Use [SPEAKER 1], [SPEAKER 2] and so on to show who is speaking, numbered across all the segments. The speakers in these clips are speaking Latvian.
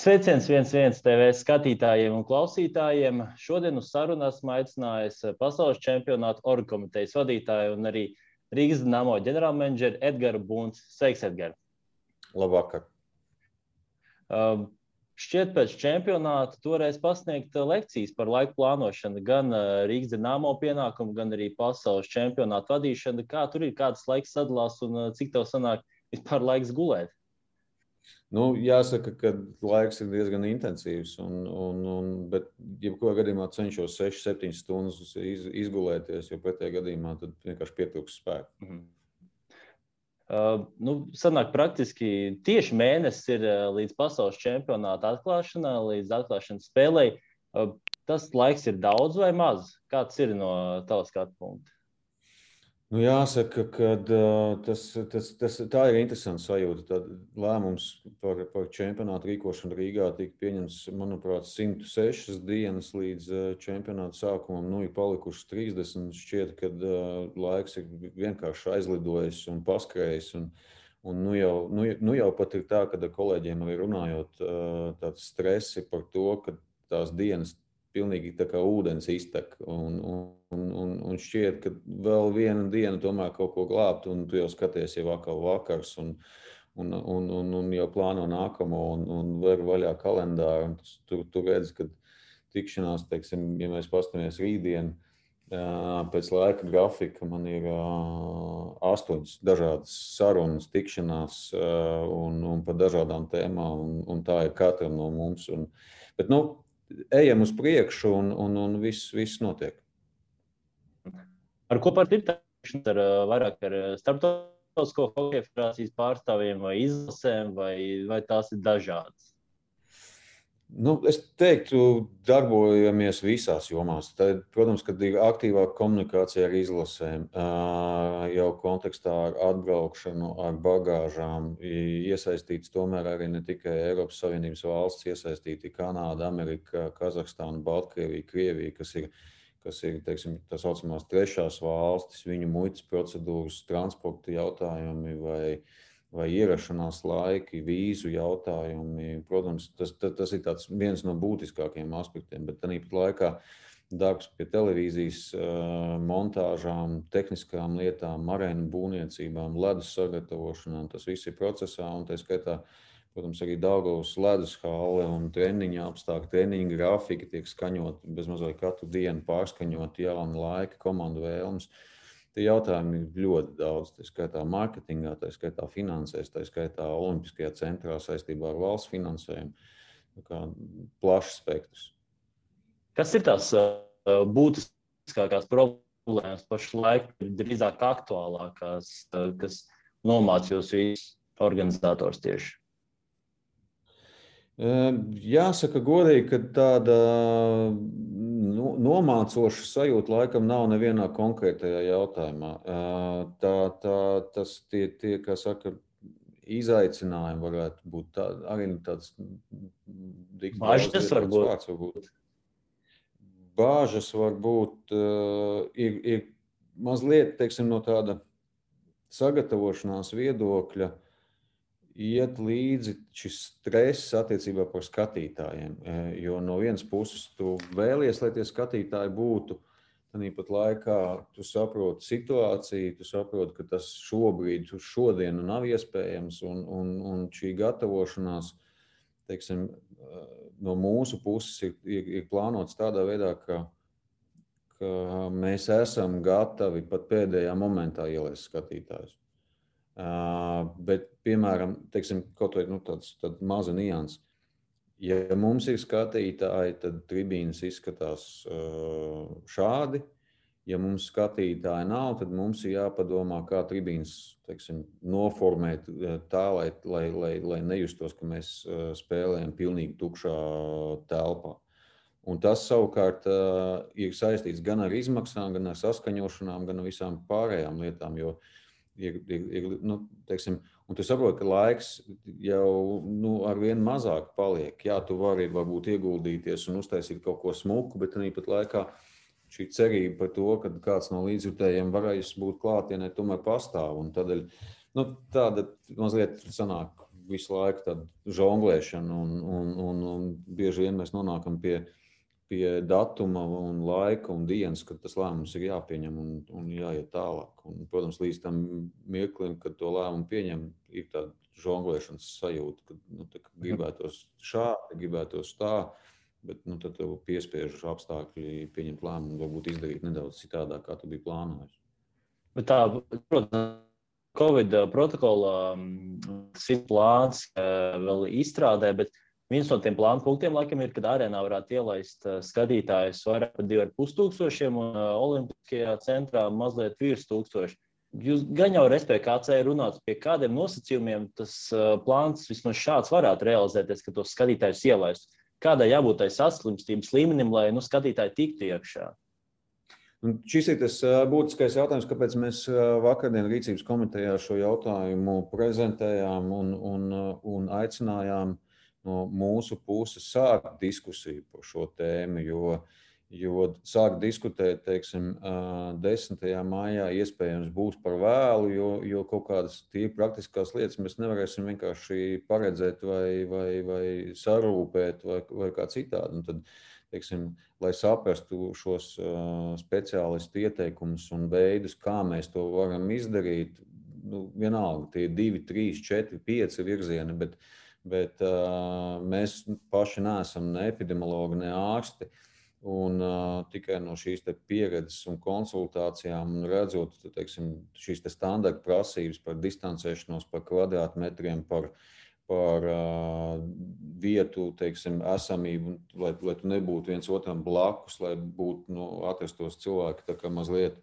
[SPEAKER 1] Sveiciens 1-1 TV skatītājiem un klausītājiem. Šodien uz sarunu esmu aicinājis pasaules čempionātu orgkomitejas vadītāju un arī Rīgas Dinamo ģenerālmenedžeri Edgaru Bunci. Sveiks, Edgar!
[SPEAKER 2] Labvakar!
[SPEAKER 1] Šķiet pēc čempionāta toreiz pasniegt lekcijas par laiku plānošanu, gan Rīgas Dinamo pienākumu, gan arī pasaules čempionātu vadīšanu. Kā tur ir, kāds laiks sadalās un cik tev sanāk vispār laiks gulēt?
[SPEAKER 2] Jāsaka, ka laiks ir diezgan intensīvs, bet jebkurā gadījumā cenšos 6-7 stundas izgulēties, jo pretējā gadījumā tad vienkārši pietrūks spēku.
[SPEAKER 1] Sanāk praktiski tieši mēnesis ir līdz pasaules čempionāta atklāšanā, līdz atklāšanas spēlei. Tas laiks ir daudz vai maz? Kāds ir no tava skatu punkta?
[SPEAKER 2] Jāsaka, ka tā ir interesanta sajūta. Tad lēmums par čempionātu rīkošanu Rīgā tika pieņemts, manuprāt, 106 dienas līdz čempionāta sākumam. Ir palikušas 30. Šķiet, ka laiks ir vienkārši aizlidojis un paskrējis. Un jau pat ir tā, kad ar kolēģiem arī runājot, tāds stresi par to, ka tās dienas pilnīgi tā kā ūdens iztek. Un šķiet, ka vēl viena diena tomēr kaut ko glābt, un tu jau skaties jau atkal vakars, un jau plāno nākamo, un ver vaļā kalendāru. Tu redzi, ka tikšanās, teiksim, ja mēs pastamies rītdien, pēc laika grafika man ir 8 dažādas sarunas, tikšanās, un par dažādām tēmām, un tā ir katram no mums. Bet, ejam uz priekšu, un viss notiek.
[SPEAKER 1] Ar ko par tirtāšanos? Vairāk ar starptautisko hokeja federācijas pārstāvjiem vai izlasēm, vai tās ir dažādas?
[SPEAKER 2] Es teiktu, darbojamies visās jomās. Tad, protams, kad ir aktīvāka komunikācija ar izlasēm, jau kontekstā ar atbraukšanu, ar bagāžām, iesaistīts tomēr arī ne tikai Eiropas Savienības valsts, iesaistīti Kanāda, Amerika, Kazahstāna, Baltkrievija, Krievija, kas ir, teiksim, tā saucamās trešās valstis, viņu muitas procedūras, transporta jautājumi vai ierašanās laiki, vīzu jautājumi. Protams, tas ir viens no būtiskākajiem aspektiem, bet tāpat laikā darbs pie televīzijas montāžām, tehniskām lietām, arēnu būvniecībām, ledus sagatavošanām, tas viss ir procesā, un tā skaitā, protams, arī Daugavas ledus hale un treniņa apstākļi, treniņa grafika tiek skaņot bezmazliet katru dienu, pārskaņot jauni laiki, komandu vēlmes. Tie jautājumi ir ļoti daudz, tā skaitā mārketingā, tā skaitā finansēs, tā skaitā Olimpiskajā centrā saistībā ar valsts finansējumu. Plašs spektrs.
[SPEAKER 1] Kas ir tās būtiskākās problēmas pašlaik, drīzāk aktuālākās, kas nomāc jūs visus organizatorus tieši?
[SPEAKER 2] Jāsaka godīgi, ka tāda nomācoša sajūta laikam nav nevienā konkrētajā jautājumā. Tas tie, kā saka, izaicinājumi varētu būt arī tāds
[SPEAKER 1] Bāžas varbūt.
[SPEAKER 2] Bāžas varbūt ir mazliet, teiksim, no tāda sagatavošanās viedokļa iet līdzi šis stress attiecībā par skatītājiem, jo no vienas puses tu vēlies, lai tie skatītāji būtu, tāpat laikā tu saproti situāciju, tu saproti, ka tas šobrīd, uz šodienu nav iespējams, un šī gatavošanās, teiksim, no mūsu puses ir plānots tādā veidā, ka mēs esam gatavi pat pēdējā momentā ielaist skatītājus. Bet, piemēram, teiksim, kaut vai tāds maza nians. Ja mums ir skatītāji, tad tribīnes izskatās šādi. Ja mums skatītāji nav, tad mums ir jāpadomā, kā tribīnes, teiksim, noformēt tā, lai nejustos, ka mēs spēlējam pilnīgi tukšā telpā. Un tas savukārt ir saistīts gan ar izmaksām, gan ar saskaņošanām, gan ar visām pārējām lietām, jo teiksim, un tu saproti, ka laiks jau arvien mazāk paliek. Jā, tu vari varbūt ieguldīties un uztaisīt kaut ko smuku, bet tāpat laikā šī cerība par to, ka kāds no līdzjutējiem varēs būt klātienē, tomēr pastāv. Un tādēļ tāda mazliet sanāk visu laiku tāda žonglēšana, un bieži vien mēs nonākam pie datuma un laika un dienas, kad tas lēmums ir jāpieņem un jāiet tālāk. Un, protams, līdz tam mirklim, kad to lēmumu pieņem, ir tāda žonglēšanas sajūta, kad gribētos šādi, gribētos tā, bet tad tev piespiež apstākļi pieņemt lēmumu, varbūt izdarīt nedaudz citādāk, kā tu biji plānojis.
[SPEAKER 1] Bet tā, protams, Covid protokola plāns vēl izstrādē, bet viens no tiem plānu punktiem, laikam, ir, kad arēnā varētu ielaist skatītājus vairāk par 2500 un Olimpiskajā centrā mazliet virs 1000. Jūs gan jau SPKC runāt, pie kādiem nosacījumiem tas plāns vismaz šāds varētu realizēties, ka tos skatītājus ielaistu. Kādai jābūt tai saslimstības līmenim, lai skatītāji tiktu iekšā?
[SPEAKER 2] Un šis ir tas būtiskais jautājums, kāpēc mēs vakardien Rīcības komitejā šo jautājumu prezentējām un aicinājām no mūsu puses sākt diskusiju par šo tēmu, jo sākt diskutēt, teiksim, 10. maijā iespējams būs par vēlu, jo kaut kādas tīri praktiskās lietas mēs nevarēsim vienkārši paredzēt vai sarūpēt vai kā citādi. Un tad, teiksim, lai saprastu šos speciālistu ieteikumus un veidus, kā mēs to varam izdarīt, vienalga, tie 2, 3, 4, 5 virzieni, bet mēs paši neesam ne epidemiologi, ne ārsti. Un tikai no šīs pieredzes un konsultācijām un redzot, teiksim, šīs standarta prasības par distancēšanos, par kvadrātmetriem, par vietu, teiksim, esamību, lai tu nebūtu viens otram blakus, lai būtu, atrastos cilvēki tā kā mazliet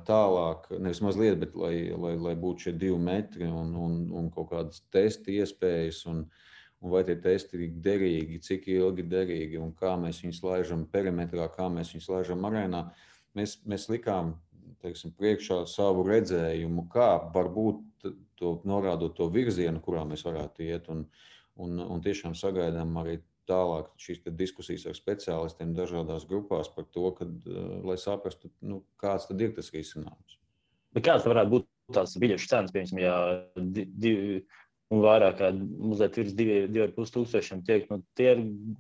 [SPEAKER 2] tālāk, nevis mazliet, bet lai būtu šie 2 metri un kaut kādas testi iespējas un vai tie testi ir derīgi, cik ilgi derīgi un kā mēs viņus laižam perimetrā, kā mēs viņus laižam arēnā. Mēs likām, teiksim, priekšā savu redzējumu, kā varbūt norādot to virzienu, kurā mēs varētu iet un tiešām sagaidām arī tālāk šīs diskusijas ar speciālistiem dažādās grupās par to, lai saprastu, kāds tad ir tas risinājums.
[SPEAKER 1] Bet kāds varētu būt tās biļešu cenas, piemēram, ja un vairāk kā mazliet virs 2500 tiek, tie ir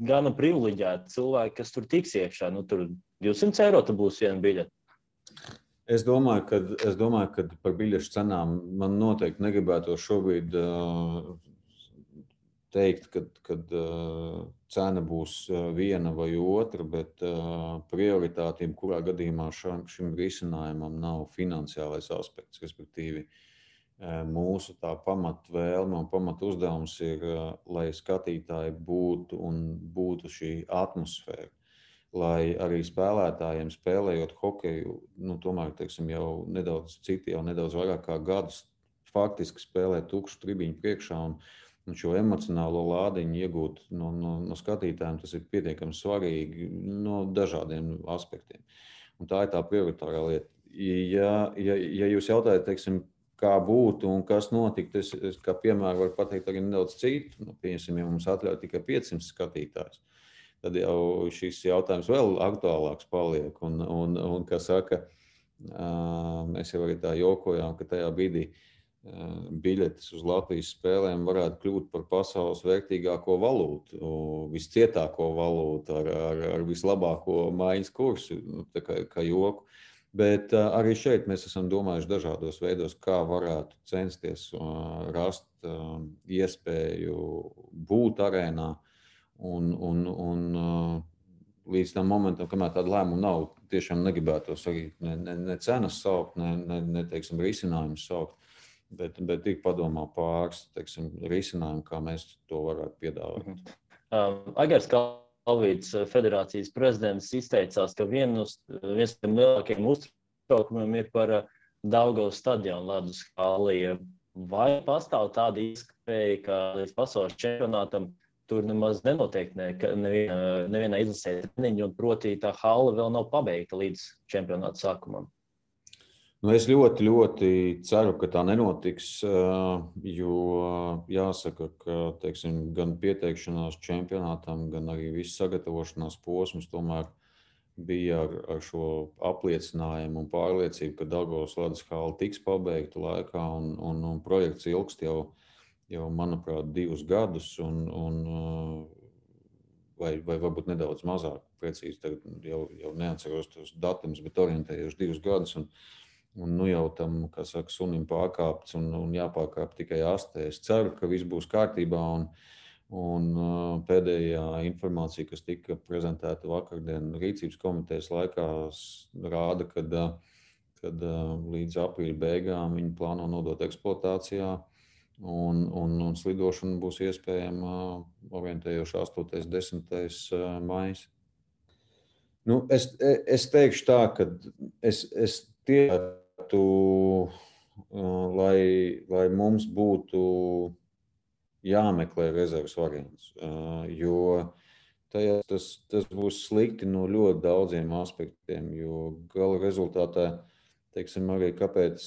[SPEAKER 1] gana privileģēti cilvēki, kas tur tiks iekšā. Tur 200 eiro būs viena biļete.
[SPEAKER 2] Es domāju, ka par biļešu cenām man noteikti negribētu šobrīd teikt, kad cena būs viena vai otra, bet prioritātība, kurā gadījumā šim risinājumam nav finansiālais aspekts, respektīvi mūsu tā pamatvēlme un pamatuzdevums ir, lai skatītāji būtu šī atmosfēra, lai arī spēlētājiem spēlējot hokeju, tomēr, teiksim, jau nedaudz vairāk kā gadus faktiski spēlē tukšu tribiņu priekšā un šo emocionālo lādiņu iegūt no skatītājiem, tas ir pietiekami svarīgi no dažādiem aspektiem. Un tā ir tā prioritārā lieta. Ja jūs jautājat, teiksim, kā būtu un kas notiktu, es kā piemēru varu pateikt arī nedaudz citu. Pieņemsim, ja mums atļauj tikai 500 skatītājus, tad jau šis jautājums vēl aktuālāks paliek. Un kā saka, mēs jau arī tā jokojām, ka tajā brīdī biļetes uz Latvijas spēlēm varētu kļūt par pasaules vērtīgāko valūtu, viscietāko valūtu ar vislabāko maiņas kursu, tā kā joku. Bet arī šeit mēs esam domājuši dažādos veidos, kā varētu censties rast iespēju būt arēnā un līdz tam momentam, kamēr tāda lēmuma nav, tiešām negribētos arī ne cenas saukt, ne teiksim, risinājumus saukt, bet ir padomā pāris, teiksim, risinājumu, kā mēs to varētu piedāvāt.
[SPEAKER 1] Agars Kalvīts, federācijas prezidents, izteicās, ka viens no lielākajiem uztraukumiem ir par Daugavas stadionu ledus halli. Vai pastāv tāda iespēja, ka līdz pasaules čempionātam tur nemaz nenotiek nevienā izlasē treniņu, un proti tā halle vēl nav pabeigta līdz čempionāta sākumam?
[SPEAKER 2] Es ļoti, ļoti ceru, ka tā nenotiks, jo jāsaka, ka, teiksim, gan pieteikšanās čempionātam, gan arī viss sagatavošanās posms tomēr bija ar šo apliecinājumu un pārliecību, ka Daugavas ledus halle tiks pabeigta laikā un projekts ilgst jau manuprāt, 2 gadus, vai varbūt nedaudz mazāk, precīzi tagad jau neatceros tos datumus, bet orientējuši 2 gadus. Un nu jau tam, kā saka, sunim pārkāpts un jāpārkāp tikai astē. Es ceru, ka viss būs kārtībā. Un pēdējā informācija, kas tika prezentēta vakardien rīcības komitejas laikā, rāda, kad līdz aprīļa beigām viņi plāno nodot eksploatācijā. Un slidošana būs iespējama orientējoši 8. 10. maijs. Nu, es teikšu tā, ka es tiektu, lai mums būtu jāmeklē rezerves variants, jo tas būs slikti no ļoti daudziem aspektiem, jo gala rezultātā, teiksim, arī kāpēc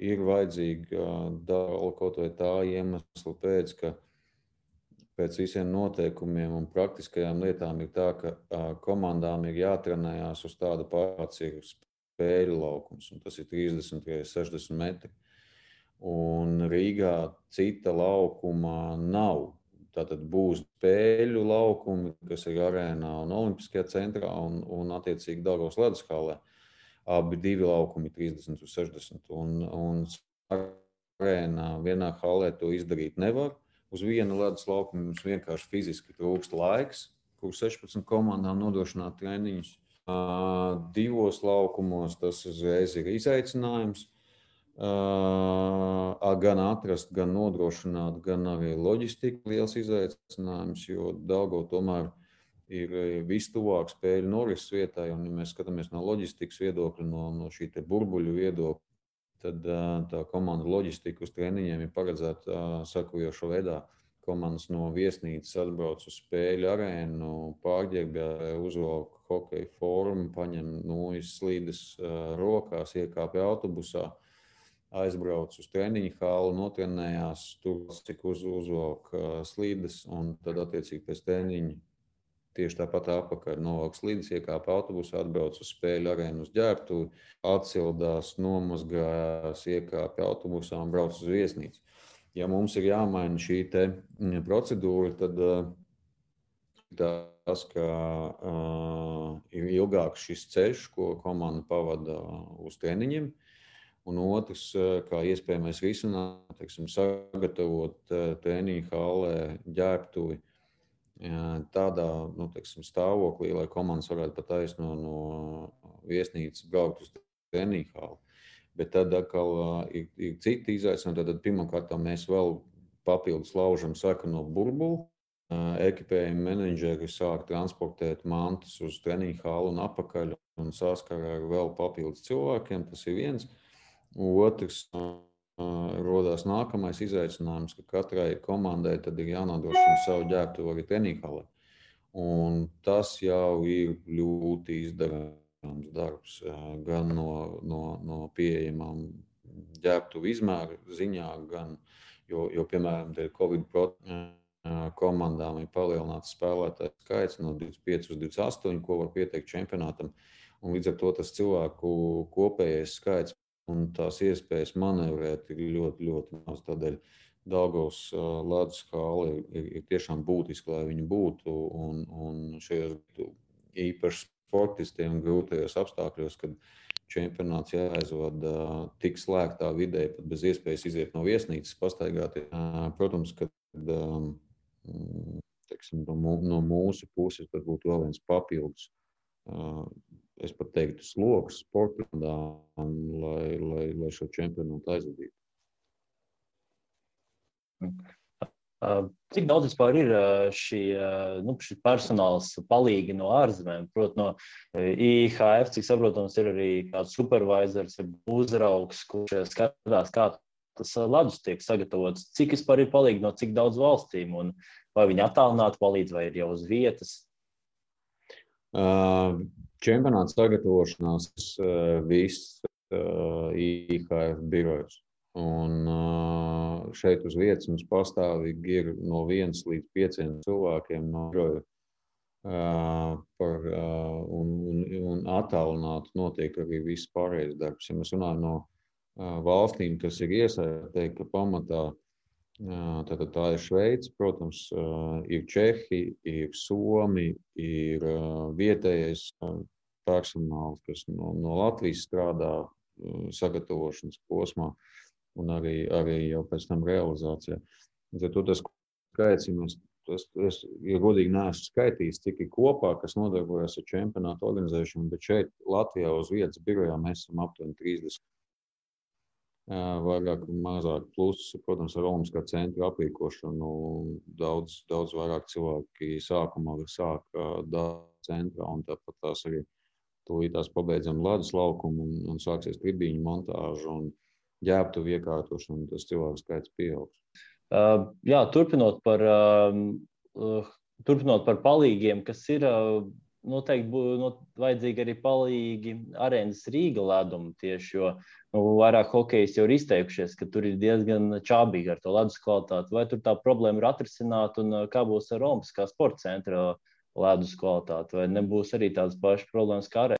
[SPEAKER 2] ir vajadzīga dala kaut vai tā iemesla pēc, ka pēc visiem noteikumiem un praktiskajām lietām ir tā, ka komandām ir jātrenējās uz tāda pats ir spēļu laukums, un tas ir 30 x 60 metri. Un Rīgā cita laukuma nav. Tātad būs spēļu laukumi, kas ir arēnā un Olimpiskajā centrā un attiecīgi Daugavas ledus hallē. Abi 2 laukumi 30 uz 60. Un arēnā vienā hallē to izdarīt nevar. Uz viena ledus laukuma mums vienkārši fiziski trūkst laiks, kur 16 komandām nodrošināt treniņus. 2 laukumos tas uzreiz ir izaicinājums. Gan atrast, gan nodrošināt, gan arī loģistika liels izaicinājums, jo Daugava tomēr ir vistuvāk spēļu norises vietai, un ja mēs skatāmies no loģistikas viedokļa, no šī te burbuļu viedokļa, tad tā komanda loģistika uz treniņiem ir paredzēta sakojošā veidā. Komandas no viesnīcas atbrauc uz spēļu arēnu, pārģērbjā, uzvelk hokeja formu, paņem slīdes rokās, iekāpja autobusā, aizbrauc uz treniņu halli, notrenējās, tur cik uzvelk slīdes, un tad attiecīgi pēc treniņa tieši tāpat apakaļ novelk slīdes, iekāp autobusā, atbrauc uz spēļu arēnu uz ģērbtuvi, atsildās, nomazgājās, iekāp autobusā un brauc uz viesnīcu. Ja mums ir jāmaina šī te procedūra, tad tas, ka ir ilgāks šis ceļš, ko komanda pavada uz treniņiem, un otrs, kā iespējamais risinājums, teiksim, sagatavot treniņu hallē ģērbtuvi tādā teiksim, stāvoklī, lai komandas varētu pa taisno no viesnīcas braukt uz treniņu halli. Bet tad atkal ir citi izaicinājumi. Tad pirmkārt mēs vēl papildus laužam sarkano burbuli. Ekipējuma menedžeri sāk transportēt mantas uz treniņu halli un apakaļ un saskarā ar vēl papildus cilvēkiem. Tas ir viens. Otrs, rodās nākamais izaicinājums, ka katrai komandai tad ir jānodrošina savu ģērbtuvi arī treniņu hallē. Un tas jau ir ļoti izdarāms darbs, gan no pieejamām ģērbtuvu izmēru ziņā, gan, jo piemēram, Covid komandām ir palielināts spēlētāju skaits no 25 uz 28, ko var pieteikt čempionātam. Un līdz ar to tas cilvēku kopējais skaits un tās iespējas manevrēt ir ļoti, ļoti maz. Tādēļ Daugavas ledus halli ir tiešām būtiski, lai viņi būtu. Un šajos īpaši sportistiem grūtajos apstākļos, kad čempionāts jāaizvada tik slēgtā vidē, pat bez iespējas iziet no viesnīcas, pastaigāt. Protams, ka teiksim, no mūsu puses tas būtu vēl viens papildus. Es pat teiktu sloks sportām, lai šo čempionātu aizvadītu.
[SPEAKER 1] Cik daudz vispār ir šī personāls palīgi no ārzemēm? Proti no IHF, cik saprotams, ir arī kāds supervisors, uzraugs, kurš skatās, kā tas ledus tiek sagatavots. Cik vispār ir palīgi no cik daudz valstīm? Un vai viņi attālināti palīdz vai ir jau uz vietas?
[SPEAKER 2] Čempionāta sagatavošanās viss IHF birojs. Un šeit uz vietas mums pastāvīgi ir no 1 līdz 5 cilvēkiem no biroja. Un attālināti notiek arī viss pārējais darbs. Ja mēs runājam no valstīm, kas ir iesaistīti, ka pamatā Tātad tā ir Šveice, protams, ir Čehi, ir Somi, ir vietējais personāls, kas no Latvijas strādā sagatavošanas posmā un arī jau pēc tam realizācijā. Tad tas skaits, es godīgi neesmu skaitījis, cik ir kopā, kas nodarbojas ar čempionātu organizēšanu, bet šeit Latvijā uz vietas birojā mēs esam aptuveni 30. Vairāk un mazāk. Plus, protams, ar Olimpiskā centra aprīkošanu daudz vairāk cilvēki sākumā sāk centrā, un tāpat tās arī tūlītās pabeidzam ledus laukumu un sāksies tribīņu montāžu un ģērbtuvu iekārtošanu, un tas cilvēku skaits pieaugs.
[SPEAKER 1] Jā, turpinot par palīgiem, kas ir noteikti būtu vajadzīgi arī palīgi Arēnas Rīga leduma tieši, jo vairāk hokejs jau ir izteikušies, ka tur ir diezgan čābīgi ar to ledus kvalitāti. Vai tur tā problēma ir atrisināta un kā būs ar Olimpiskā sporta centra ledus kvalitāti? Vai nebūs arī tādas pašas problēmas kā Arēna?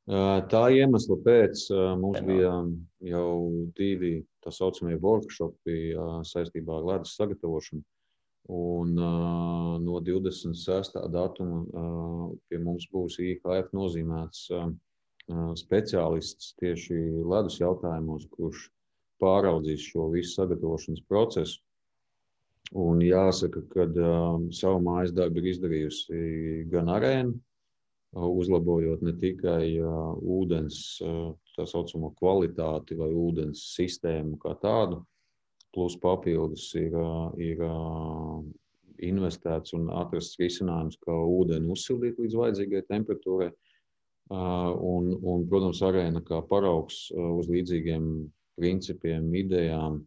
[SPEAKER 2] Tā iemesla pēc mums bija jau 2 tā saucamie workshopi saistībā ar ledus sagatavošanu. Un no 26. datuma pie mums būs IHF nozīmēts speciālists tieši ledus jautājumos, kurš pāraudzīs šo visu sagatavošanas procesu. Un jāsaka, ka savu mājas darbu ir izdarījusi gan Arēna, uzlabojot ne tikai ūdens tā saucamo kvalitāti vai ūdens sistēmu kā tādu, plus papildus ir investēts un atrasts risinājums, kā ūdeni uzsildīt līdz vajadzīgai temperatūrai. Un, protams, Arēna kā paraugs uz līdzīgiem principiem, idejām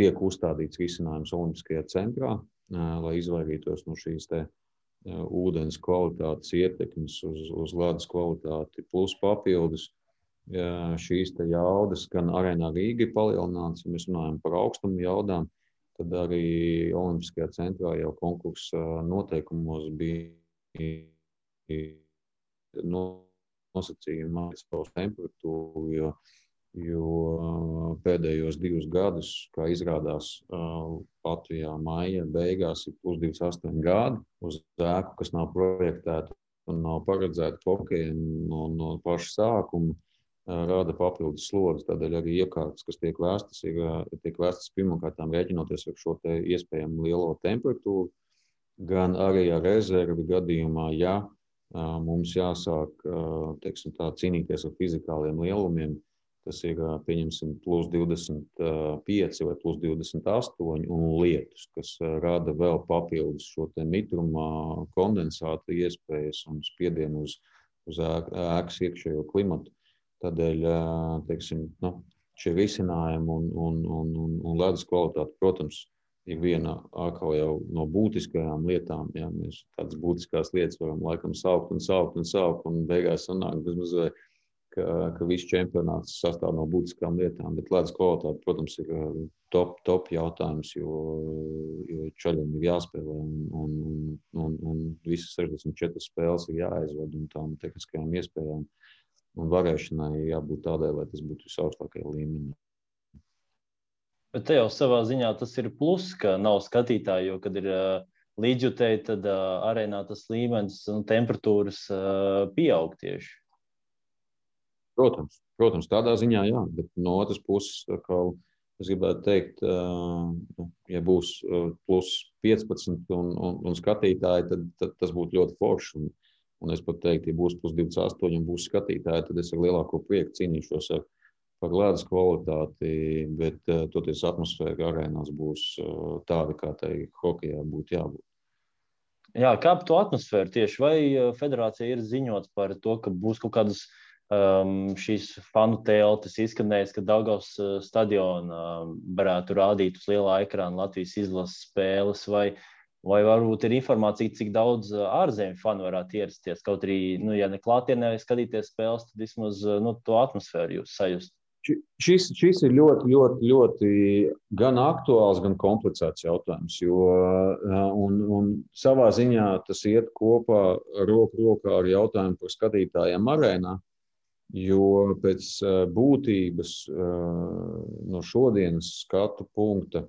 [SPEAKER 2] tiek uzstādīts risinājums Olimpiskajā centrā, lai izvairītos no šīs ūdens kvalitātes ietekmes uz ledus kvalitāti, plus papildus. Šīs jaudas gan Arēnā Rīga ir palielināts, ja mēs runājam par augstumu jaudām, tad arī Olimpiskajā centrā jau konkursa noteikumos bija nosacījumi savu temperatūru, jo pēdējos 2 gadus, kā izrādās, Latvijā maija beigās ir plus 28 grādi uz ēku, kas nav projektēta un nav paredzēta hokejam no paša sākuma. Rada papildus slogas, tādēļ arī iekārtas, kas tiek vēstas pirmkārtām rēķinoties ar šo iespējami lielo temperatūru, gan arī ar rezervi gadījumā, ja mums jāsāk cīnīties ar fizikāliem lielumiem, tas ir, pieņemsim, plus 25 vai plus 28 un lietus, kas rada vēl papildus šo mitruma kondensāta iespējas un spiedienu uz ēkas iekšējo klimatu. Tādēļ, šie risinājumi un ledus kvalitāte, protams, ir viena atkal jau no būtiskajām lietām. Jā, mēs tādas būtiskās lietas varam laikam saukt un beigās sanāk bezmazliet, ka viss čempionāts sastāv no būtiskām lietām, bet ledus kvalitāte, protams, ir top jautājums, jo čaļiem ir jāspēlē un visas 64 spēles ir jāaizved un tām tehniskajām iespējām. Un varēšanai jābūt tādai, lai tas būtu visaugstākajā līmenī.
[SPEAKER 1] Bet te jau savā ziņā tas ir plus, ka nav skatītāji, jo, kad ir līdzjutēji, tad arēnā tas līmenis un temperatūras pieaug tieši.
[SPEAKER 2] Protams, tādā ziņā jā, bet no otras puses, es gribētu teikt, ja būs plus 15 un skatītāji, tad tas būtu ļoti forši. Un es pat teiktu, ja būs plus 28 un būs skatītāji, tad es ar lielāko prieku cīnīšos par ledus kvalitāti, bet toties atmosfēra arēnās būs tāda, kā tai hokejā būtu jābūt.
[SPEAKER 1] Jā, kā par to atmosfēru tieši? Vai federācija ir ziņots par to, ka būs kaut kādas šīs fanu teltis izskanējis, ka Daugavas stadiona varētu rādīt uz lielā ekrāna Latvijas izlases spēles, vai varbūt ir informācija, cik daudz ārzemju fanu varētu ierasties, kaut arī, ja ne klātienē skatīties spēles, tad vismaz to atmosfēru jūs sajust.
[SPEAKER 2] Šis ir ļoti gan aktuāls, gan komplicēts jautājums, un savā ziņā tas iet kopā roku rokā ar jautājumu par skatītājiem arēnā, Jo pēc būtības no šodienas skatu punkta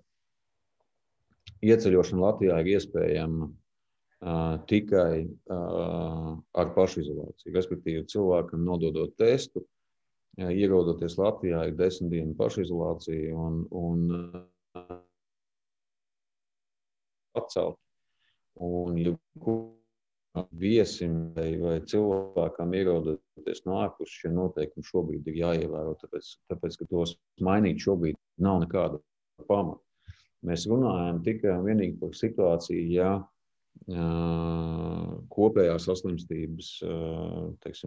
[SPEAKER 2] ieceļošana Latvijā ir iespējama tikai ar pašizolāciju. Respektīvi, cilvēkam nododot testu, ierodoties Latvijā, ir 10 dienu pašizolācija un atcelt. Un, ja viesim vai cilvēkam ierodoties no ārpus, šie noteikumi šobrīd ir jāievēro, tāpēc ka tos mainīt šobrīd nav nekāda pamata. Mēs runājam tikai un vienīgi par situāciju, ja kopējās saslimstības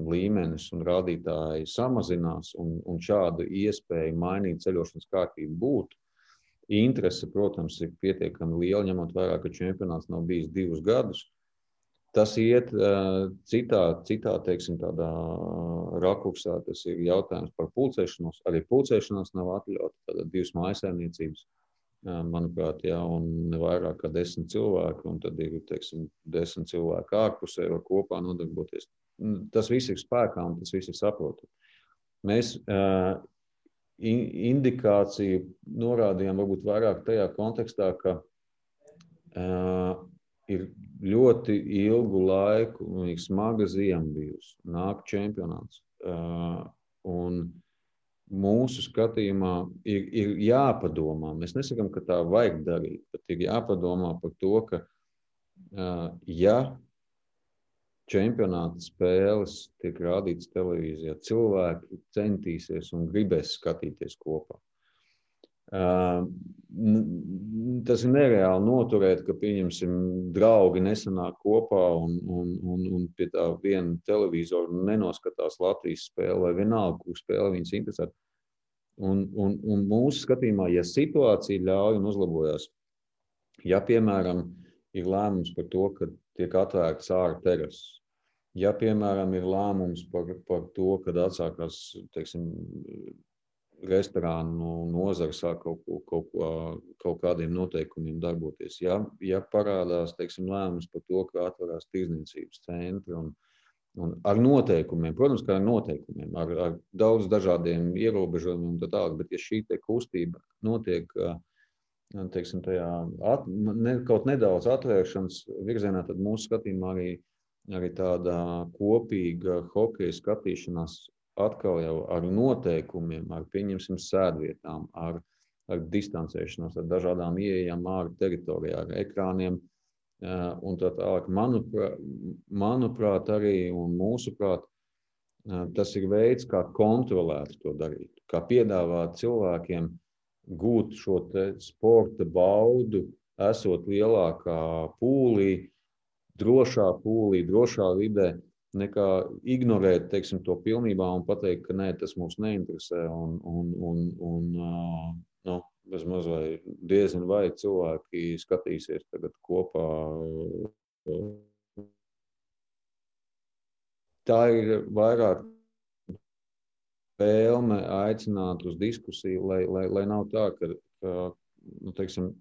[SPEAKER 2] līmenis un rādītāji samazinās un šāda iespēja mainīt ceļošanas kārtību būtu. Interese, protams, ir pietiekami liela, ņemot vērā, ka čempionāts nav bijis 2 gadus. Tas iet citā tādā rakursā, tas ir jautājums par pulcēšanos. Arī pulcēšanās nav atļauta, tātad 2 mājsaimniecības. Manuprāt, un vairāk kā 10 cilvēki, un tad ir 10 cilvēki ārpusē var kopā nodarboties. Tas viss ir spēkā un tas viss ir saprotami. Mēs indikāciju norādījām varbūt vairāk tajā kontekstā, ka ir ļoti ilgu laiku un ir smaga ziema bijusi. Nāk čempionāts. Un mūsu skatījumā ir jāpadomā. Mēs nesakām, ka tā vajag darīt, bet ir jāpadomā par to, ka ja čempionāta spēles tiek rādītas televīzijā, cilvēki centīsies un gribēs skatīties kopā. Tas ir nereāli noturēt, ka, pieņemsim, draugi nesanāk kopā un pie tā viena televizoru nenoskatās Latvijas spēli vai vienalga, kur spēle viņas interesē. Un mūsu skatījumā, ja situācija ļauj un uzlabojās, ja, piemēram, ir lēmums par to, ka tiek atvērts ārā terases, ja, piemēram, ir lēmums par to, kad atsākās, restorānu nozara sāk kaut kādiem noteikumiem darboties. Ja parādās, lēmums par to, ka atverās tirdzniecības centri un ar noteikumiem, protams, kā ar noteikumiem, ar daudz dažādiem ierobežojumiem un tā tālāk, bet ja šī kustība notiek, tajā kaut nedaudz atvēršanas virzienā, tad mūsu skatījumā arī tāda kopīga hokeja skatīšanās atkal jau ar noteikumiem, ar, pieņemsim, sēdvietām, ar distancēšanos, ar dažādām ieejām ārā teritorijā, ar ekrāniem un tā tālāk. Manuprāt, arī un mūsuprāt, tas ir veids, kā kontrolēt to darīt, kā piedāvāt cilvēkiem gūt šo sporta baudu, esot lielākā pūlī, drošā vidē, nekā ignorēt, to pilnībā un pateikt, ka nē, tas mūs neinteresē bezmaz vai diezin vai cilvēki skatīsies tagad kopā. Tā ir vairāk vēlme aicināt uz diskusiju, lai nav tā, ka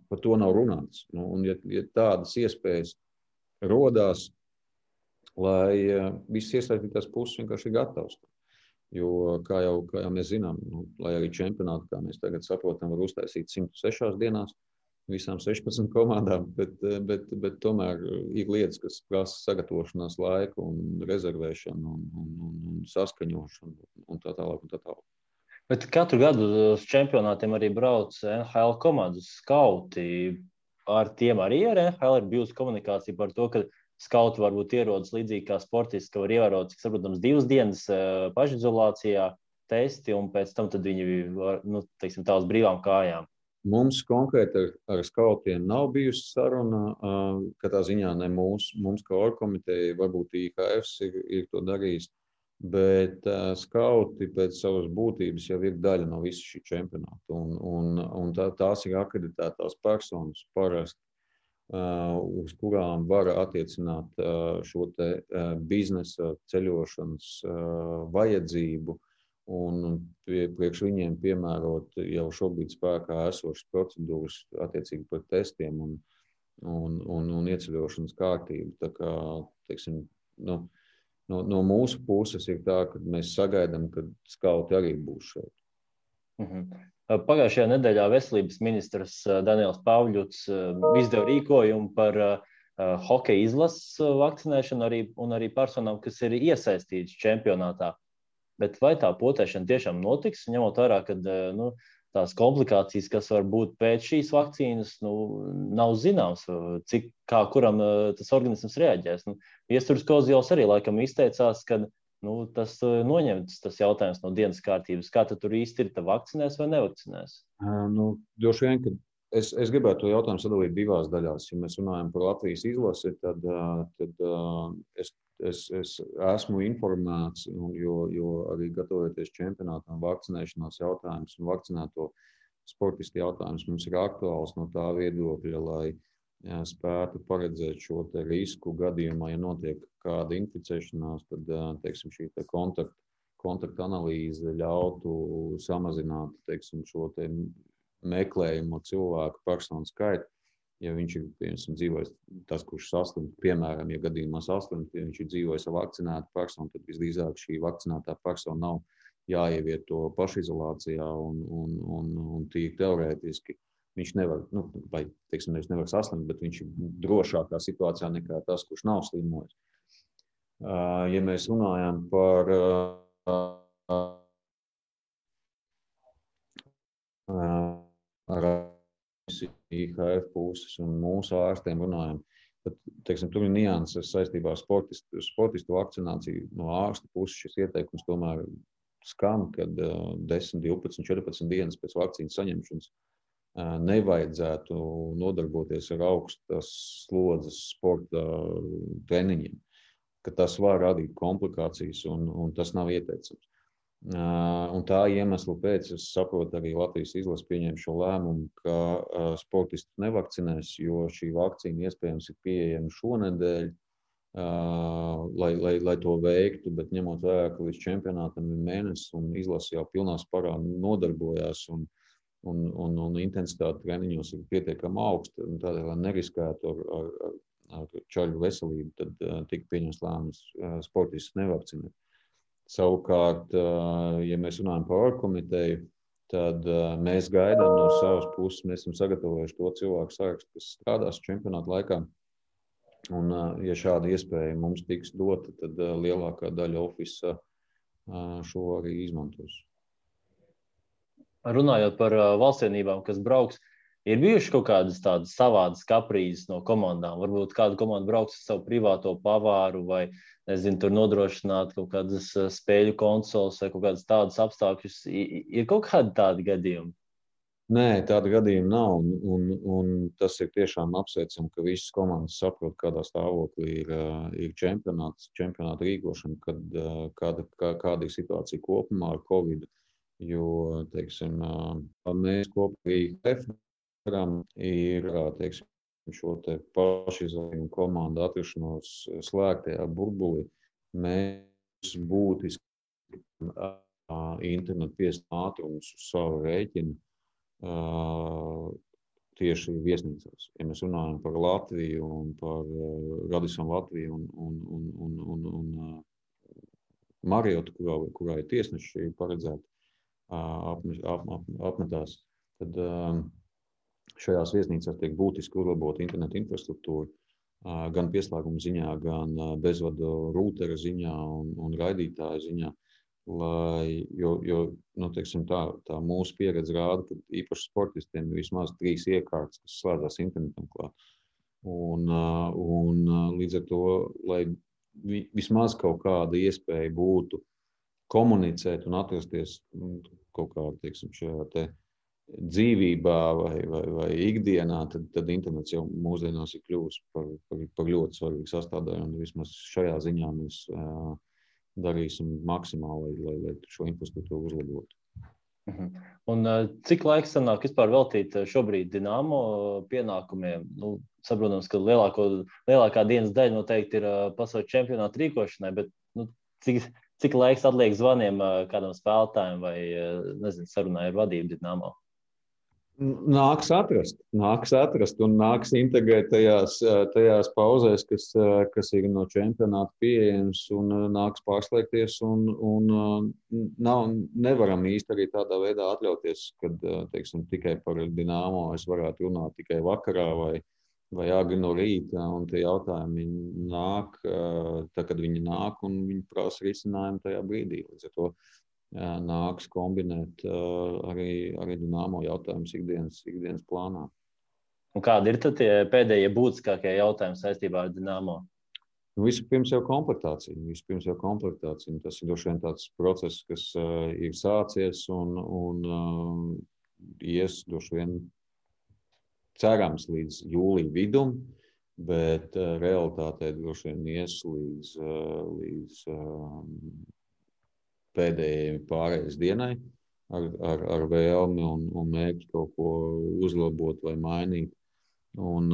[SPEAKER 2] par to nav runāts. Un ja tādas iespējas rodās, lai visas iesaistītās puses vienkārši ir gatavs. Jo, kā jau mēs zinām, lai arī čempionātu, kā mēs tagad saprotam, var uztaisīt 106 dienās visām 16 komandām, bet tomēr ir lietas, kas prasa sagatavošanās laiku un rezervēšanu un saskaņošanu un tā tālāk.
[SPEAKER 1] Bet katru gadu uz čempionātiem arī brauc NHL komandas skauti. Ar tiem arī ar NHL ir bijusi komunikācija par to, ka skauti varbūt ierodas līdzīgi kā sportisti, ka var ievērot, cik saprotams, 2 dienas pašizolācijā testi, un pēc tam tad viņi var, tā uz brīvām kājām.
[SPEAKER 2] Mums konkrēti ar skautiem nav bijusi saruna, katrā ziņā ne mums kā orgkomiteja, varbūt IHF ir to darījis, bet skauti pēc savas būtības jau ir daļa no visu šī čempionāta, un tās ir akreditētās personas parasti, uz kurām var attiecināt šo biznesa ceļošanas vajadzību un priekš viņiem piemērot jau šobrīd spēkā esošas procedūras attiecīgi par testiem un ieceļošanas kārtību. Tā kā, no mūsu puses ir tā, ka mēs sagaidām, ka skauti arī būs šeit.
[SPEAKER 1] Pagājušajā nedēļā veselības ministrs Daniels Pavļuts izdeva rīkojumu par hokeja izlases vakcinēšanu un arī personām, kas ir iesaistītas čempionātā. Bet vai tā potēšana tiešām notiks, ņemot vērā, ka tās komplikācijas, kas var būt pēc šīs vakcīnas, nav zināms, kā kuram tas organisms reaģēs. Viesturs Kozjovs arī laikam izteicās, ka tas noņemts tas jautājums no dienas kārtības. Kā tad tur īsti ir, vakcinēs vai nevakcinēs?
[SPEAKER 2] Droši vien, ka es gribētu to jautājumu sadalīt divās daļās. Ja mēs runājam par Latvijas izlasi, tad es esmu informēts, jo arī gatavojoties čempionātam, vakcinēšanās jautājums un vakcinēto sportistu jautājums mums ir aktuāls no tā viedokļa, lai spētu paredzēt šo te risku gadījumā, ja notiek kāda inficēšanās, tad, teiksim, šī te kontakta analīze ļautu samazināt, teiksim, šo te meklējumu cilvēku personu skaitu. Ja viņš ir, piemēram, dzīvojis tas, kurš saslimt, piemēram, ja gadījumā saslimt, ja viņš ir dzīvojis ar vakcinētu personu, tad visdrīzāk šī vakcinētā persona nav jāievieto pašizolācijā un tīri teorētiski viņš nevar, vai, teiksim, nevar saslimt, bet viņš ir drošākā situācijā nekā tas, kurš nav slimojis. Ja mēs runājam par IHF puses un mūsu ārstiem runājam, tad, teiksim, tur ir nianses saistībā ar sportistu vakcināciju. No ārsta puses šis ieteikums tomēr skan, kad 10, 12, 14 dienas pēc vakcīnas saņemšanas nevajadzētu nodarboties ar augstas slodzes sporta treniņiem, ka tas var radīt komplikācijas un tas nav ieteicams. Un tā iemesla pēc es saprotu arī Latvijas izlase pieņēma šo lēmumu, ka sportistus nevakcinēs, jo šī vakcīna iespējams ir pieejama šonedēļ, lai to veiktu, bet ņemot vērā, ka līdz čempionātam ir mēnesis un izlase jau pilnā sparā nodarbojās un intensitāte treniņos ir pietiekami augsta, un tādēļ, lai neriskētu ar čaļu veselību, tad tika pieņemts lēmums sportistus nevakcinēt. Savukārt, ja mēs runājam par orgkomiteju, tad mēs gaidām no savas puses, mēs esam sagatavojuši to cilvēku sarakstu, kas strādās čempionāta laikā. Un, ja šāda iespēja mums tiks dota, tad lielākā daļa ofisa šo arī izmantos.
[SPEAKER 1] Runājot par valstsienībām, kas brauks, ir bijuši kaut kādas tādas savādas kaprīzes no komandām? Varbūt kāda komanda brauks ar savu privāto pavāru vai, nezinu, tur nodrošināt kaut kādas spēļu konsoles vai kaut kādas tādas apstākļus. Ir kaut kādi tādi gadījumi?
[SPEAKER 2] Nē, tāda gadījuma nav. Un tas ir tiešām apsveicami, ka visas komandas saprot, kādā stāvoklī ir čempionāta rīkošana, kāda ir situācija kopumā ar Covid. Jo, teiksim, mēs kopā ar IHF ir, teiksim, šo te pašizolējumu komandu atrašanos slēgtajā burbulī. Mēs būtiski internetu piesaistes ātrumus uz savu rēķinu tieši viesnīcās. Ja mēs runājam par Latviju un par Radisson Latviju un Mariotu, kurā ir tiesneši paredzēti apmetās, tad šajās viesnīcās tiek būtiski uzlabota interneta infrastruktūra, gan pieslēguma ziņā, gan bezvadu rūtera ziņā un raidītāja ziņā. Jo teiksim, tā mūsu pieredze rāda, ka īpaši sportistiem ir vismaz 3 iekārtas, kas slēdzās internetam klāt. Un līdz ar to, lai vismaz kaut kāda iespēja būtu komunicēt un atrasties kaut kā, teiksim, šajā te dzīvībā vai ikdienā, tad internets jau mūsdienās ir kļuvis par ļoti svarīgu sastāvdaļu, un vismaz šajā ziņā mēs darīsim maksimāli, lai šo infrastruktūru uzlabotu.
[SPEAKER 1] Un cik laiks sanāk vispār veltīt šobrīd Dinamo pienākumiem? Saprotams, ka lielākā dienas daļa noteikti ir pasaules čempionāta rīkošanai, bet cik laiks atliek zvaniem kādam spēlētājiem vai, nezinu, sarunai ar vadību Dinamo?
[SPEAKER 2] Nāks atrast un nāks integrēt tajās pauzēs, kas ir no čempionāta pieejams, un nāks pārslēgties. Nevaram īsti arī tādā veidā atļauties, kad teiksim, tikai par Dinamo es varētu runāt tikai vakarā vai agri no rīta. Un tie jautājumi nāk, tad, kad viņi nāk, un viņi prasa risinājumu tajā brīdī. Līdz ar to nāks kombinēt arī Dinamo jautājumus ikdienas plānā.
[SPEAKER 1] Un kādi ir tad tie pēdējie būtiskākie jautājumi saistībā ar Dinamo?
[SPEAKER 2] Vispirms jau komplektācija. Tas ir droši vien tāds process, kas ir sācies un ies droši vien cerams līdz jūlija vidum, bet realitātē droši vien ies līdz pēdējai pārējais dienai ar vēlmi un mērķi kaut ko uzlabot vai mainīt. Un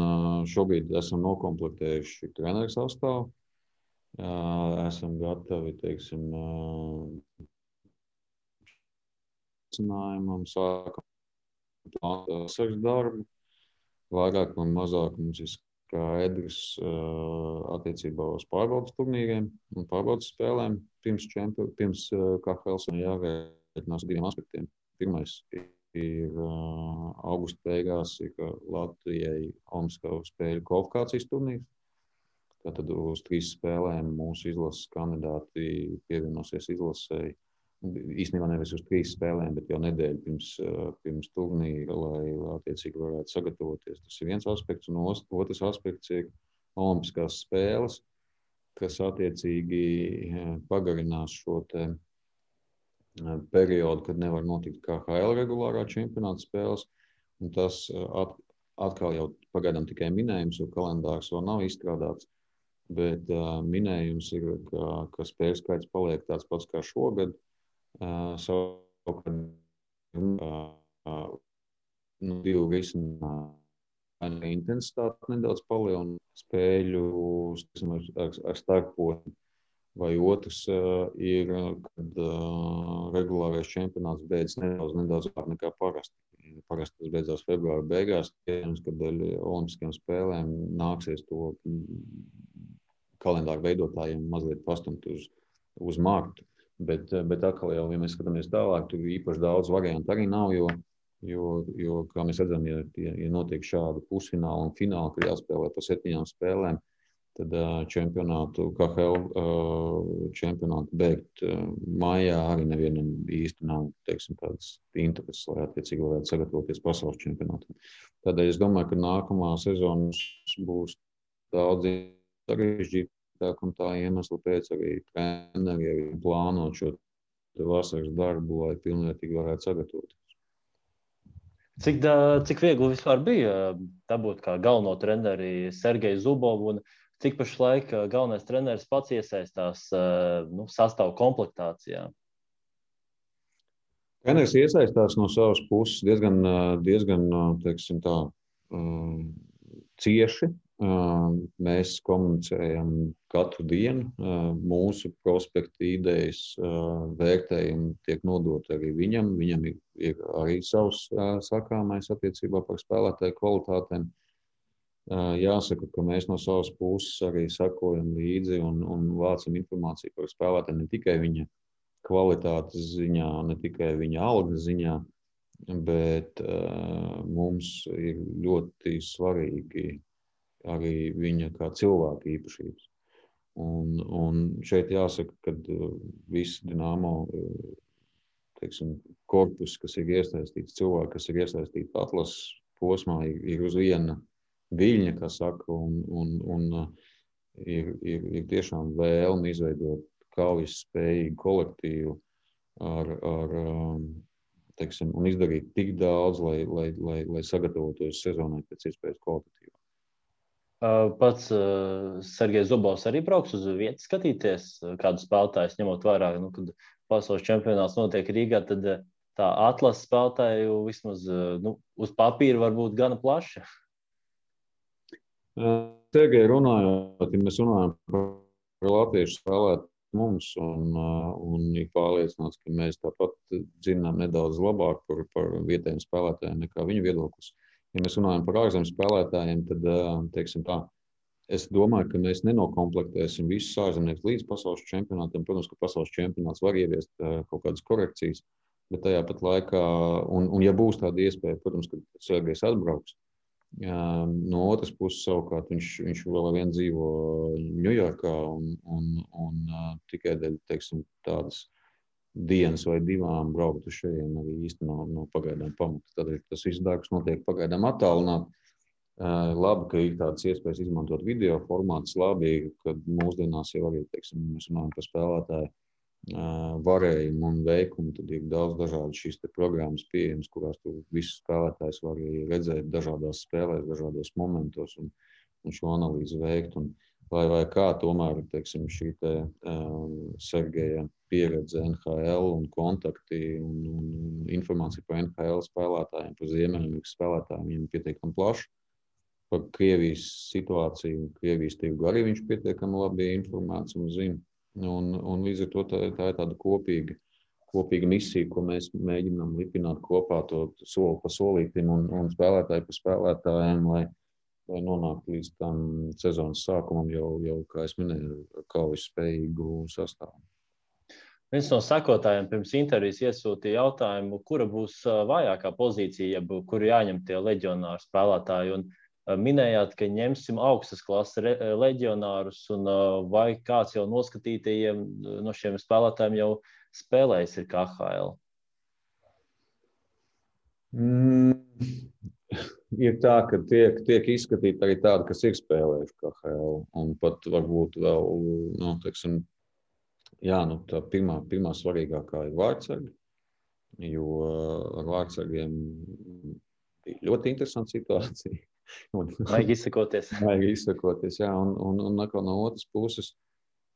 [SPEAKER 2] šobrīd esam nokomplektējuši treneru sastāvu. Esam gatavi, teiksim, sākam plānot darbu. Vairāk un mazāk mums ir skaidrs attiecībā uz pārbaudas turnīriem un pārbaudas spēlēm pirms KHL jārēķinās diviem aspektiem. Pirmais ir augusta beigās ir Latvijai Olimpisko spēļu kvalifikācijas turnīrs. Tātad uz 3 spēlēm mūsu izlases kandidāti pievienosies izlasei. Īstenībā nevis uz 3 spēlēm, bet jau nedēļu pirms turnīra, lai attiecīgi varētu sagatavoties. Tas ir viens aspekts, un otrs aspekts ir Olimpiskās spēles, kas attiecīgi pagarinās šo te periodu, kad nevar notikt KHL regulārā čempionāta spēles. Un tas atkal jau pagaidām tikai minējums, jo kalendārs vēl nav izstrādāts. Bet minējums ir, ka spēļu skaits paliek tāds pats kā šogad. Savukārt divu risinājumu intensitāti nedaudz palielina spēļu ar starposmu. Vai otrs ir, kad regulārais čempionāts beidzas nedaudz ātrāk nekā parasti. Parasti tas beidzās februāra beigās, kad dēļ olimpiskajām spēlēm nāksies to kalendāru veidotājiem mazliet pastumt uz martu. Bet atkal jau, ja mēs skatāmies tālāk, tur īpaši daudz variantu arī nav, jo kā mēs redzam, ja notiek šādi pusfināli un fināli, kad jāspēlē pa 7 spēlēm, tad KHL čempionātu beigt maijā arī nevienam īsti nav, teiksim, tādas intereses, lai attiecīgi varētu sagatavoties pasaules čempionātam. Tādēļ es domāju, ka nākamā sezona būs daudz sarežģīta. Un tā iemesla pēc arī treneri plānot šo vasaras darbu, lai pilnvērtīgi varētu sagatavoties.
[SPEAKER 1] Cik viegli vispār bija dabūt kā galveno treneri Sergeju Zubovu, un cik pašlaik galvenais treneris pats iesaistās sastāvu komplektācijā?
[SPEAKER 2] Treneris iesaistās no savas puses diezgan teiksim tā, cieši. Mēs komunicējam katru dienu. Mūsu prospekta idejas vērtējumi tiek nodoti arī viņam. Viņam ir arī savs sakāmais attiecībā par spēlētāju kvalitātēm. Jāsaka, ka mēs no savas puses arī sakojam līdzi un vācam informāciju par spēlētājiem ne tikai viņa kvalitātes ziņā, ne tikai viņa algas ziņā, bet mums ir ļoti svarīgi arī viņa kā cilvēka īpašības. Un šeit jāsaka, ka viss Dinamo, teiksim, korpus, kas ir iesaistīts, cilvēki, kas ir iesaistīti atlases posmā, ir uz viena viļņa, kā saka, un ir tiešām vēlme izveidot kaujas spējīgu kolektīvu teiksim, un izdarīt tik daudz, lai sagatavotos sezonai pēc iespējas kvalitatīvāk.
[SPEAKER 1] Pats Sergejs Zubovs arī brauks uz vietu skatīties, kādu spēlētājus ņemot vērā, kad pasaules čempionāts notiek Rīgā, tad tā atlases spēlētāju vismaz uz papīra var būt gana plaša.
[SPEAKER 2] Sergeja runājot, ja mēs runājam par latviešu spēlētāju mums un ir pārliecināts, ka mēs tāpat zinām nedaudz labāk par vietējiem spēlētājiem nekā viņu viedoklis. Ja mēs runājam par ārzemju spēlētājiem, tad, teiksim tā, es domāju, ka mēs nenokomplektēsim visus ārzemniekus līdz pasaules čempionātam. Protams, ka pasaules čempionāts var ieviest kaut kādas korekcijas, bet tajā pat laikā, un ja būs tāda iespēja, protams, ka Sergejs atbrauks. No otras puses, savukārt, viņš vēl ar vienu dzīvo Ņujorkā un tikai dēļ, teiksim, tādas dienas vai divām braukt uz šejien arī īsti no pagaidām pamata. Tādēļ tas viss darbs notiek pagaidām attālināt. Labi, ka ir tādas iespējas izmantot video formātus. Labi, kad mūsdienās jau arī, teiksim, mēs runājam par spēlētāju varējumu un veikumu, tad ir daudz dažādu šīs programmas pieejamas, kurās tu visus spēlētājus var arī redzēt dažādās spēlēs, dažādos momentos un šo analīzi veikt. Un vai kā tomēr, teiksim, šī Sergeja pieredze NHL un kontakti un informācija par NHL spēlētājiem, par Ziemeļamerikas spēlētājiem, viņiem pietiekami plaši. Par Krievijas situāciju, Krievijas tirgu arī viņš pietiekami labi informēts un zina. Un līdz ar to tā ir tāda kopīga misija, ko mēs mēģinām lipināt kopā to soli pa solītim un spēlētāju pa spēlētājiem, lai nonāktu līdz tam sezonas sākumam jau kā es minēju, kaujas spējīgu sastāvu.
[SPEAKER 1] Viens no sekotājiem pirms intervijas iesūtīja jautājumu, kura būs vājākā pozīcija, kur jāņem tie leģionāri spēlētāji. Un minējāt, ka ņemsim augstas klases leģionārus, un vai kāds jau noskatītajiem no šiem spēlētājiem jau spēlējis ir KHL?
[SPEAKER 2] Ir tā, ka tiek izskatīti arī tādi, kas ir spēlējuši KHL, un pat varbūt vēl, teiksim, tā pirmā svarīgākā ir vārdsargi, jo ar vārdsargiem bija ļoti interesanta situācija.
[SPEAKER 1] Vajag izsakoties.
[SPEAKER 2] Vajag izsakoties, jā. Un no otras puses,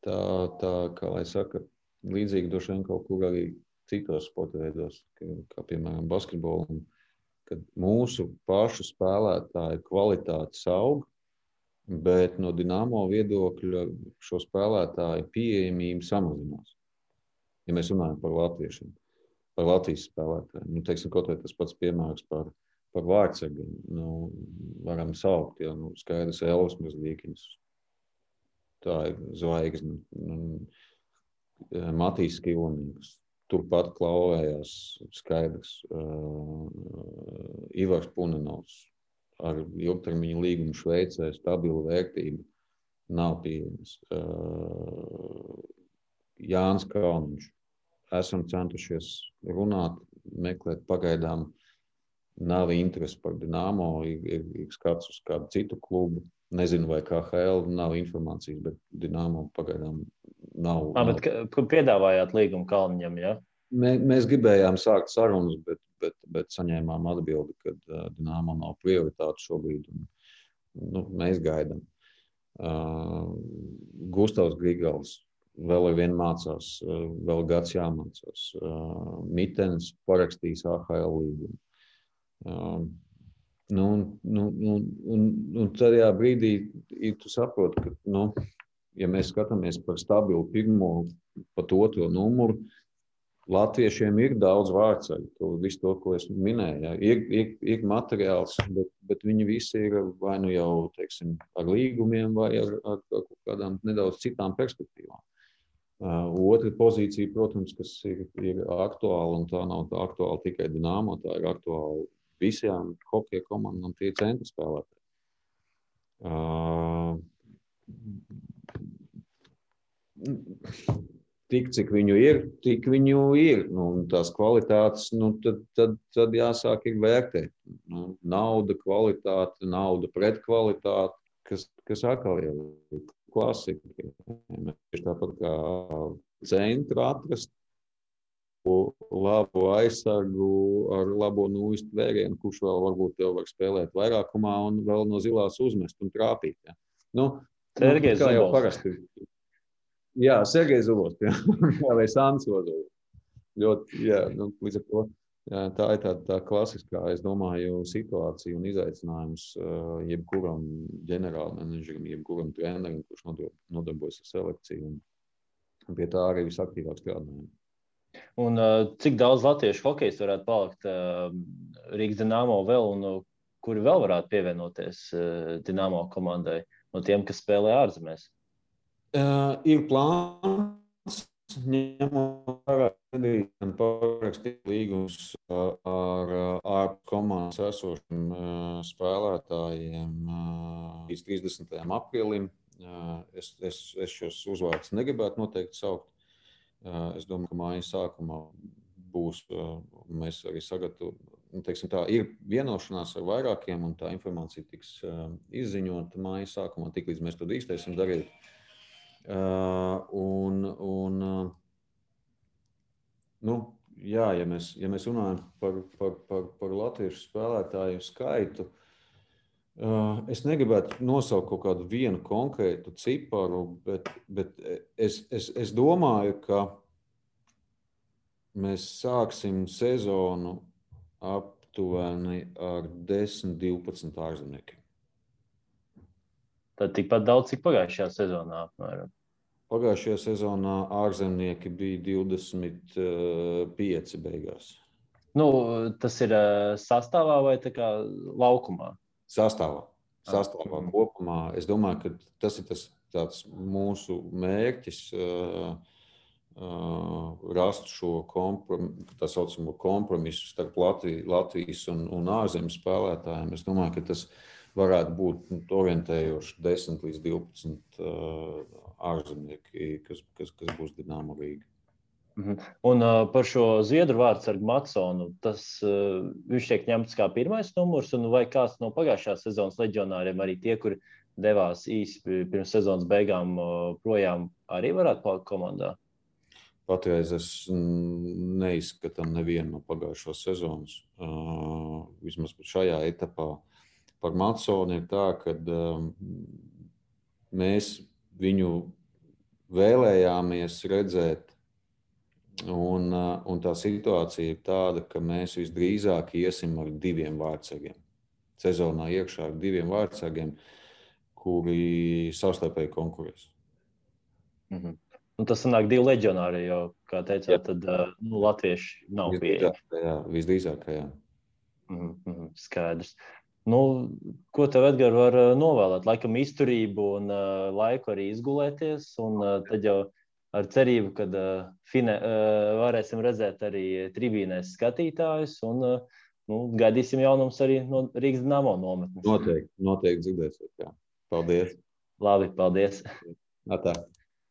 [SPEAKER 2] tā, kā lai saka, līdzīgi droši vien kaut kur arī citos sporta veidos, kā piemēram basketbolu, kad mūsu pašu spēlētāju kvalitātes aug, bet no Dinamo viedokļa šo spēlētāju pieejamība samazinās. Ja mēs runājam par latviešiem, par Latvijas spēlētājiem, teiksim, kaut vai tas pats piemērs par vārdsargiem, varam saukt, skaidrs Elvis Mazlīkins, tā ir zvaigzne, Matīs Skilonīgs, turpat klauvējās skaidrs Ivars Punenovs ar ilgtermiņa līgumu Šveicē, stabilu vērtību, nav pieejams. Jānis Kalniņš, esam centušies runāt, meklēt pagaidām. Nav interesi par Dinamo, ir skats uz kādu citu klubu. Nezinu, vai KHL nav informācijas, bet Dinamo pagaidām nav.
[SPEAKER 1] Bet kur piedāvājāt līgumu Kalniņam, ja?
[SPEAKER 2] Mēs gribējām sākt sarunas, bet saņēmām atbildi, ka Dinamo nav prioritāte šobrīd. Mēs gaidām. Gustavs Grigals vēl ar vienu mācās, vēl gads jāmācās. Mitens parakstīs AHL līgumu. Un tajā brīdī tu saproti, ka, ja mēs skatāmies par stabilu pirmo, pat otro numuru, latviešiem ir daudz vārdsargu, visu to, ko es minēju. Ja. Ir materiāls, bet viņi visi ir vai nu jau, teiksim, ar līgumiem vai ar kādām nedaudz citām perspektīvām. Otra pozīcija, protams, kas ir aktuāla, un tā nav aktuāla tikai Dinamo, tā ir aktuāla visām hokeja komandām, tie ir centra spēlētāji. Tik, cik viņu ir, tik viņu ir. Tās kvalitātes, tad jāsāk ir vērtēt. Nauda, kvalitāte, nauda pret kvalitāti, kas atkal jau ir klasika. Mēs tāpat kā centru atrast labu aizsargu ar labo nūjistu vērienu, kurš vēl varbūt jau var spēlēt vairākumā un vēl no zilās uzmest un trāpīt. Ja.
[SPEAKER 1] Sergejs
[SPEAKER 2] kā jau
[SPEAKER 1] Zubovs.
[SPEAKER 2] parasti. Jā, Sergejs Zubovs, vai Sants Ozovs. Ļoti, līdz ar to tā ir tā klasiskā, es domāju, situācija un izaicinājums jebkuram ģenerālmenedžerim, jebkuram trenerim, kurš nodarbojas ar selekciju. Pie tā arī visaktīvāk strādājam.
[SPEAKER 1] Un cik daudz latviešu hokejs varētu palikt Rīgas Dinamo vēl, un kuri vēl varētu pievienoties Dinamo komandai no tiem, kas spēlē ārzemēs?
[SPEAKER 2] Ir plāns, ņemot vērā, ka parakstīt līgumus ar komandas esošiem spēlētājiem līdz 30. aprīlim. Es šos uzvārdus negribētu noteikti saukt. Es domāju, ka mājas sākumā būs, mēs arī ir vienošanās ar vairākiem, un tā informācija tiks izziņota mājas sākumā, tik līdz mēs to drīkstēsim darīt. Ja mēs runājam par latviešu spēlētāju skaitu, es negribētu nosaukt kaut kādu vienu konkrētu ciparu, bet es domāju, ka mēs sāksim sezonu aptuveni ar 10-12 ārzemniekiem.
[SPEAKER 1] Tad tikpat daudz, cik pagājušajā sezonā apmēram.
[SPEAKER 2] Pagājušajā sezonā ārzemnieki bija 25 beigās.
[SPEAKER 1] Tas ir sastāvā vai tā kā laukumā?
[SPEAKER 2] Sastāvā kopumā. Es domāju, ka tas ir tāds mūsu mērķis rast šo tā saucamo kompromisu starp Latvijas un ārzemes spēlētājiem. Es domāju, ka tas varētu būt orientējoši 10 līdz 12 ārzemnieki, kas būs Dinamo Rīga.
[SPEAKER 1] Un par šo zviedru vārdsargu Matsonu, viņš tiek ņemts kā pirmais numurs, un vai kāds no pagājušās sezonas leģionāriem, arī tie, kuri devās īsi pirms sezonas beigām projām, arī varētu palikt komandā?
[SPEAKER 2] Patreiz es neizskatām nevienu no pagājušās sezonas. Vismaz šajā etapā. Par Matsonu ir tā, ka mēs viņu vēlējāmies redzēt, un tā situācija ir tāda, ka mēs visdrīzāk iesim ar 2 vārdsargiem. Sezonā iekšā ar 2 vārdsargiem, kuri savstarpēji konkurēs.
[SPEAKER 1] Un tas sanāk 2 leģionāri, jo, kā teicāt, tad latvieši nav pieejami.
[SPEAKER 2] Visdrīzāk, jā.
[SPEAKER 1] Skaidrs. Ko tev, Edgar, var novēlēt? Laikam izturību un laiku arī izgulēties, un tad jau ar cerību, kad varēsim redzēt arī tribīnēs skatītājus, un gaidīsim jaunums arī no Rīgas Dinamo nometnes.
[SPEAKER 2] Noteikti dzirdēsiet, jā. Paldies.
[SPEAKER 1] Labi, paldies.
[SPEAKER 2] Atā.